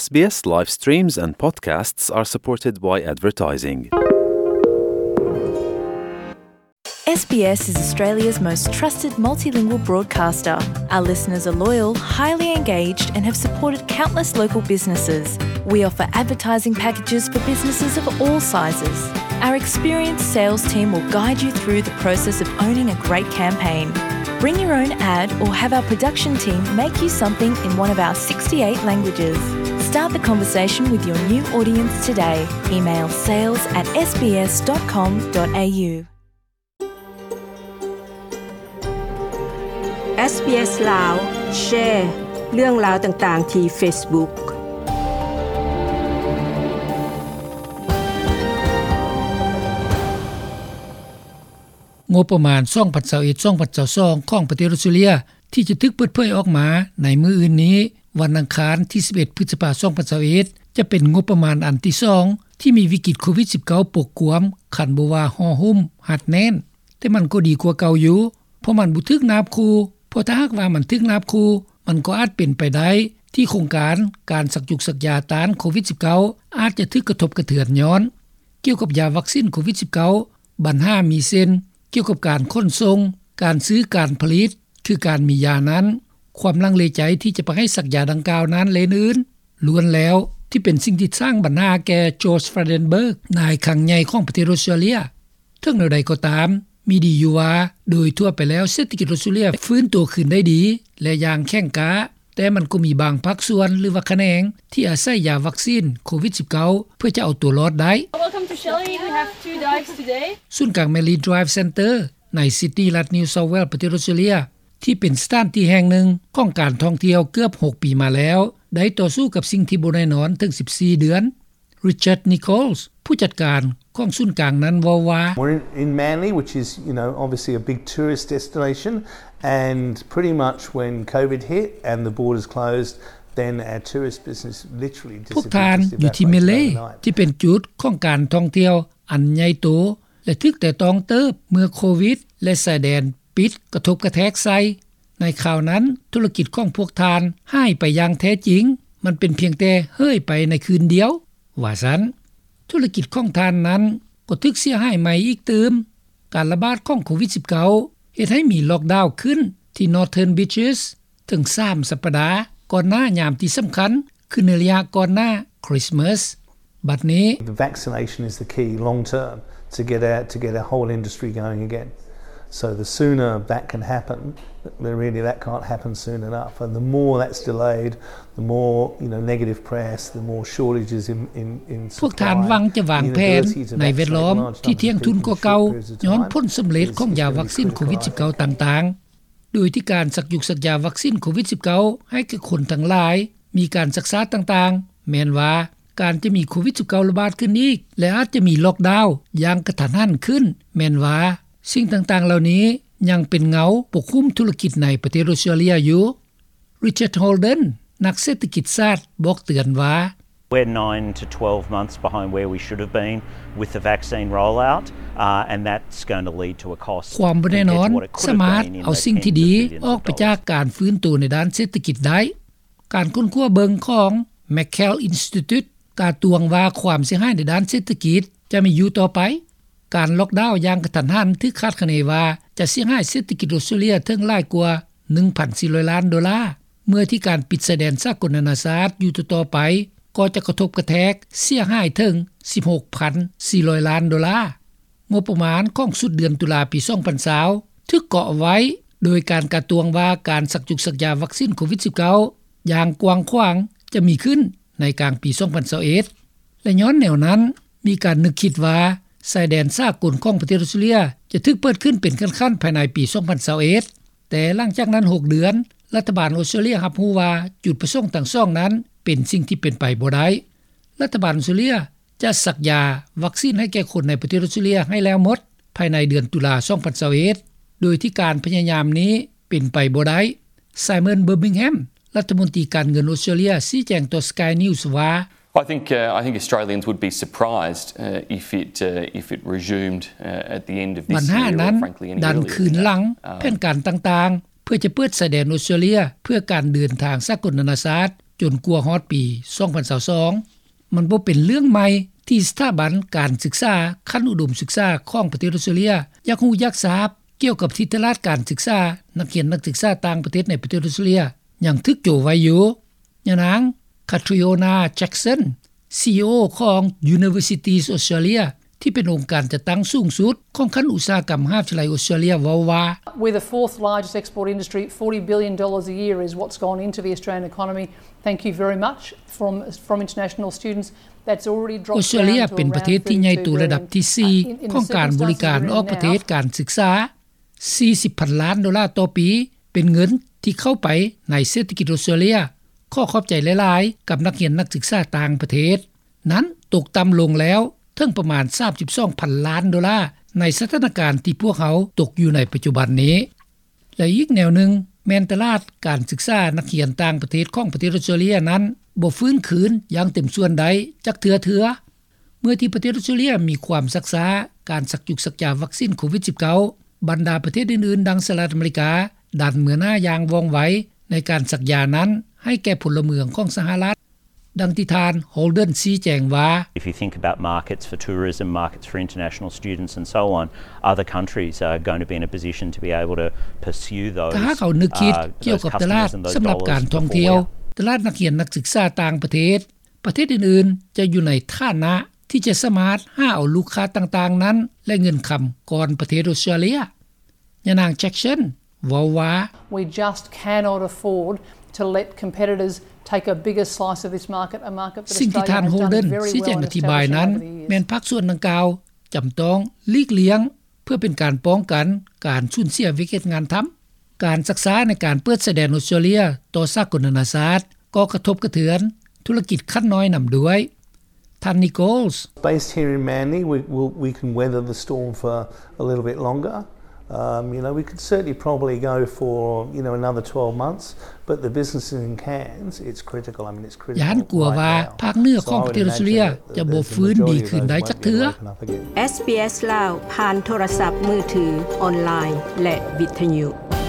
S B S live streams and podcasts are supported by advertising. S B S is Australia's most trusted multilingual broadcaster. Our listeners are loyal, highly engaged, and have supported countless local businesses. We offer advertising packages for businesses of all sizes. Our experienced sales team will guide you through the process of owning a great campaign. Bring your own ad or have our production team make you something in one of our sixty-eight languages. Start the conversation with your new audience today. Email sales at S B S dot com dot A U. SBS ລາວ ແຊ ເລື່ອງລາວຕ່າງໆ ທີ່ Facebook. ງົບປະມານ ສອງພັນຊາວເອັດ ສອງພັນຊາວສອງ ຂອງປະເທດອອສເຕຣເລັຍ ທີ່ຈະຖືກເປີດເຜີຍອອກມາໃນມື້ອື່ນນີ້ ວັນອັງຄານ ທີສິບເອັດ ພຶດສະພາ ສອງພັນຊາວເອັດ ຈະເປັນງົບປະມານອັນທີສອງ ທີ່ມີວິກິດໂຄວິດສິບເກົ້າ ປົກກວມ ຄັນບໍ່ວ່າຫໍ່ຫຸ້ມຮັດແໜ້ນ. ແຕ່ມັນກໍດີກວ່າເກົ່າຢູ່ ເພາະມັນບໍ່ຖືກນາບຂູ່, ເພາະຖ້າຫາກວ່າມັນຖືກນາບຂູ່ ມັນກໍອາດເປັນໄປໄດ້ທີ່ໂຄງການການສັກຢູກສັກຢາຕ້ານໂຄວິດສິບເກົ້າ ອາດຈະຖືກກະທົບກະເທືອນຍ້ອນ. ກ່ຽວກັບຢາວັກຊິນໂຄວິດສິບເກົ້າ ບັນຫາມີເຊັ່ນ ກ່ຽວກັບການຂົນສົ່ງ, ການຊື້, ການຜະລິດ, ຄືການມີຢານັ້ນ, ຄວາມລັງເລໃຈທີ່ຈະໄປໃຫ້ສັກຢາດັ່ງກ່າວນັ້ນ ແລະ ອື່ນໆ ລ້ວນແລ້ວທີ່ເປັນສິ່ງທີ່ສ້າງບັນຫາແກ່ George Frydenberg ນາຍຄັງໃຫຍ່ຂອງປະເທດອອສເຕຣເລັຍ. ເຖິງແນວໃດກໍຕາມ, ມີດີຢູ່ວ່າ ໂດຍທົ່ວໄປແລ້ວເສດຖະກິດອອສເຕຣເລັຍຟື້ນຕົວຄືນໄດ້ດີ ແລະ ຢ່າງແຂງກ້າ, ແຕ່ມັນກໍມີບາງພາກສ່ວນ ຫຼືວ່າຂະແໜງ ທີ່ອາໄສຢາວັກຊິນໂຄວິດສິບເກົ້າ ເພື່ອຈະເອົາຕົວລອດໄດ້. Welcome to Shelley. We have two dives today. ສູນກາງ Manly Dive Centre ໃນຊິດນີ ລັດ New South Wales ປະເທດອອສເຕຣເລັຍ ທີ່ເປັນສະຖານທີ່ແຫ່ງໜຶ່ງຂອງການທ່ອງທ່ຽວເກືອບຫົກປີມາແລ້ວ ໄດ້ຕໍ່ສູ້ກັບສິ່ງທີ່ບໍ່ແນ່ນອນເຖິງສິບສີ່ເດືອນ. Richard Nichols ຜູ້ຈັດການຂອງສູນກາງນັ້ນເວົ້າວ່າ We're in, in Manly, which is, you know, obviously a big tourist destination, and pretty much when COVID hit and the borders closed, then our tourist business literally disappeared. ພວກທ່ານຢູ່ທີ່ Manly ທີ່ເປັນຈຸດຂອງການທ່ອງທ່ຽວອັນໃຫຍ່ໂຕ ແລະ ຖືກແຕະຕ້ອງເຕີບເມື່ອໂຄວິດ ແລະ ຊາຍແດນປິດກະທົບກະແທກໃສ່. ໃນຄາວນັ້ນ ທຸລະກິດຂອງພວກທ່ານຫາຍໄປຢ່າງແທ້ຈິງ, ມັນເປັນພຽງແຕ່ເຫີຍໄປໃນຄືນດຽວ, ວ່າຊັ້ນ. ທຸລະກິດຂອງທ່ານນັ້ນກໍຖືກເສຍຫາຍໃໝ່ອີກຕື່ມ. ການລະບາດຂອງໂຄວິດສິບເກົ້າ ເຮັດໃຫ້ມີລ໊ອກດາວຂຶ້ນທີ່ Northern Beaches ເຖິງສາມສັບປະດາ ກ່ອນໜ້າຍາມທີ່ສຳຄັນ ຄືໃນໄລຍະກ່ອນໜ້າຄຣິສມາສ. ບັດນີ້ The vaccination is the key long term to get our, to get our whole industry going again. So the sooner that can happen, really that can't happen soon enough. And the more that's delayed, the more, you know, negative press, the more shortages in, in, in supply, ພວກທ່ານຫວັງຈະວາງແຜນໃນແວດລ້ອມທີ່ທ່ຽງທຸນກວ່າເກົ່າ ຍ້ອນຜົນສຳເລັດຂອງຢາວັກຊິນໂຄວິດສິບເກົ້າຕ່າງໆ. ໂດຍທີ່ການສັກຢູກສັກຢາວັກຊິນໂຄວິດສິບເກົ້າ ໃຫ້ແກ່ຄົນທັງຫຼາຍ ມີການຊັກຊ້າຕ່າງໆ ແມ່ນວ່າການຈະມີໂຄວິດສິບເກົ້າລະບາດຂຶ້ນອີກ ແລະ ອາດຈະມີລ໊ອກດາວຢ່າງກະທັນຫັນຂຶ້ນ ແມ່ນວ່າສິ່ງຕ່າງໆເຫຼົ່ານີ້ຍັງເປັນເງົາປົກຫຸ້ມທຸລະກິດໃນປະເທດອອສເຕຣເລັຍຢູ່. Richard Holden ນັກເສດຖະກິດສາດ ບອກເຕືອນວ່າ We're nine to twelve months behind where we should have been with the vaccine rollout, uh, and that's going to lead to a cost ຄວາມບໍ່ແນ່ນອນສາມາດເອົາສິ່ງທີ່ດີອອກໄປຈາກການຟື້ນໂຕໃນດ້ານເສດຖະກິດໄດ້. ການຄົ້ນຄວ້າເບິ່ງຂອງ McKell Institute ກາດຕວງວ່າຄວາມເສຍຫາຍໃນດ້ານເສດຖະກິດຈະມີຢູ່ຕໍ່ໄປ. ການລ໊ອກດາວຢ່າງກະທັນຫັນຖືກຄາດຄະເນວ່າຈະເສຍຫາຍເສດຖະກິດອອສເຕຣເລັຍເຖິງຫຼາຍກວ່າໜຶ່ງພັນສີ່ຮ້ອຍລ້ານໂດລາ, ເມື່ອທີ່ການປິດຊາຍແດນສາກົນນານາຊາດຢູ່ຕໍ່ໆໄປ ກໍຈະກະທົບກະແທກເສຍຫາຍເຖິງສິບຫົກພັນສີ່ຮ້ອຍລ້ານໂດລາ. ງົບປະມານຂອງສຸດເດືອນຕຸລາປີສອງພັນຊາວ ຖືກເກາະໄວ້ໂດຍການກາດຕວງວ່າການສັກຢູກສັກຢາວັກຊິນໂຄວິດສິບເກົ້າຢ່າງກວ້າງຂວາງຈະມີຂຶ້ນໃນກາງປີສອງພັນຊາວເອັດ ແລະ ຍ້ອນແນວນັ້ນ ມີການນຶກຄິດວ່າຊາຍແດນສາກົນຂອງປະເທດອອສເຕຣເລັຍຈະຖືກເປີດຂຶ້ນເປັນຂັ້ນໆພາຍໃນປີສອງພັນຊາວເອັດ. ແຕ່ຫຼັງຈາກນັ້ນຫົກເດືອນ ລັດຖະບານອອສເຕຣເລັຍຮັບຮູ້ວ່າຈຸດປະສົງທັງສອງນັ້ນເປັນສິ່ງທີ່ເປັນໄປບໍ່ໄດ້. ລັດຖະບານອອສເຕຣເລັຍຈະສັກຢາວັກຊິນໃຫ້ແກ່ຄົນໃນປະເທດອອສເຕຣເລັຍໃຫ້ແລ້ວໝົດພາຍໃນເດືອນຕຸລາສອງພັນຊາວເອັດ ໂດຍທີ່ການພະຍາຍາມນີ້ເປັນໄປບໍ່ໄດ້. Simon Birmingham ລັດຖະມົນຕີການເງິນອອສເຕຣເລັຍ ຊີ້ແຈງຕໍ່ Sky News ວ່າ I think, uh, I think Australians would be surprised, uh, if it, uh, if it resumed, uh, at the end of this year or, frankly, any earlier than that. ບັນຫານັ້ນດັນຄືນຫຼັງແຜນການຕ່າງໆ ເພື່ອຈະເປີດຊາຍແດນອອສເຕຣເລັຍເພື່ອການເດີນທາງສາກົນນານາຊາດ ຈົນກວ່າຮອດປີ ສອງພັນຊາວສອງ. ມັນບໍ່ເປັນເລື່ອງໃໝ່ທີ່ສະຖາບັນການສຶກສາຂັ້ນອຸດົມສຶກສາຂອງປະເທດອອສເຕຣເລັຽ ຢາກຮູ້ຢາກຊາບກ່ຽວກັບທິດຕະລາດການສຶກສານັກຮຽນນັກສຶກສາຕ່າງປະເທດໃນປະເທດອອສເຕຣເລັຽ ຍັງຖືກໂຈະໄວ້ຢູ່. ຍານາງ Catriona Jackson, CEO ຂອງ Universities Australia ທີ່ເປັນອົງການຈັດຕັ້ງສູງສຸດຂອງຂັ້ນອຸດສາຫະກຳມະຫາວິທະຍາໄລອອສເຕຣເລັຽ ເວົ້າວ່າ We're the fourth largest export industry, forty billion dollars a year is what's gone into the Australian economy. Thank you very much. From from international students, that's already dropped down to around thirty-two billion. ອອສເຕຣເລັຽເປັນປະເທດທີ່ໃຫຍ່ໂຕລະດັບທີສີ່ຂອງການບໍລິການອອກປະເທດ, ການສຶກສາ ສີ່ສິບພັນລ້ານໂດລາຕໍ່ປີ ເປັນເງິນທີ່ເຂົ້າໄປໃນເສດຖະກິດອອສເຕຣເລັຽ. ຂໍຂອບໃຈຫຼາຍໆກັບນັກຮຽນນັກສຶກສາຕ່າງປະເທດ. ນັ້ນຕົກຕ່ຳລົງແລ້ວເຖິງປະມານສາມສິບສອງພັນລ້ານໂດລາ ໃນສະຖານະການທີ່ພວກເຮົາຕົກຢູ່ໃນປັດຈຸບັນນີ້. ແລະ ອີກແນວໜຶ່ງແມ່ນຕະຫຼາດການສຶກສານັກຮຽນຕ່າງປະເທດຂອງປະເທດອອສເຕຣເລັຽນັ້ນບໍ່ຟື້ນຄືນຢ່າງເຕັມສ່ວນໄດ້ຈັກເທື່ອເທື່ອ. ເມື່ອທີ່ປະເທດອອສເຕຣເລັຽມີຄວາມຊັກຊ້າການສັກຢຸກສັກຢາວັກຊິນໂຄວິດສິບເກົ້າ, ບັນດາປະເທດອື່ນໆ ດັ່ງສະຫະລັດອາເມລິກາ ດັນເມືອໜ້າຢ່າງວ່ອງໄວໃນການສັກຢານັ້ນໃຫ້ແກ່ພົນລະເມືອງຂອງສະຫະລັດ. ດັ່ງທີ່ທ່ານ Holden ຊີ້ແຈງວ່າ If you think about markets for tourism, markets for international students and so on, other countries are going to be in a position to be able to pursue those, ຖ້າຫາກເຮົານຶກຄິດກ່ຽວກັບຕະຫຼາດສຳລັບການທ່ອງທ່ຽວ, ຕະຫຼາດນັກຮຽນນັກສຶກສາຕ່າງປະເທດ, ປະເທດອື່ນໆຈະຢູ່ໃນຖານະທີ່ຈະສາມາດຫາເອົາລູກຄ້າຕ່າງໆນັ້ນ ແລະ ເງິນຄຳກ່ອນປະເທດອອສເຕຣເລັຽ. ຍານາງ Jackson ເວົ້າວ່າ We just cannot afford to let competitors take a bigger slice of this market, a market that ສິ່ງທີ່ທ່ານ Holden ຊີ້ແຈງອະທິບາຍນັ້ນ ແມ່ນພາກສ່ວນດັ່ງກ່າວຈຳຕ້ອງຫຼີກລ່ຽງ ເພື່ອເປັນການປ້ອງກັນການສູນເສຍວຽກເຮັດງານທຳ. ການຊັກຊ້າໃນການເປີດຊາຍແດນອອສເຕຣເລັຽຕໍ່ສາກົນນານາຊາດ ກໍກະທົບກະເທືອນທຸລະກິດຂັ້ນນ້ອຍນຳດ້ວຍ. ທ່ານ Nichols. Based here in Manly, we, we, we can weather the storm for a little bit longer. Um, you know, we could certainly probably go for, you know, another twelve months, but the business in Cairns, it's critical. I mean, it's critical right now. ຢ້ານກົວວ່າພາກເໜືອຂອງປະເທດອອສເຕຣເລັຽຈະບໍ່ຟື້ນດີຄືນໄດ້ຈັກເທື່ອ. ເອສບີເອສ ລາວ ຜ່ານໂທລະສັບມືຖື, ອອນລາຍ ແລະ ວິທະຍຸ.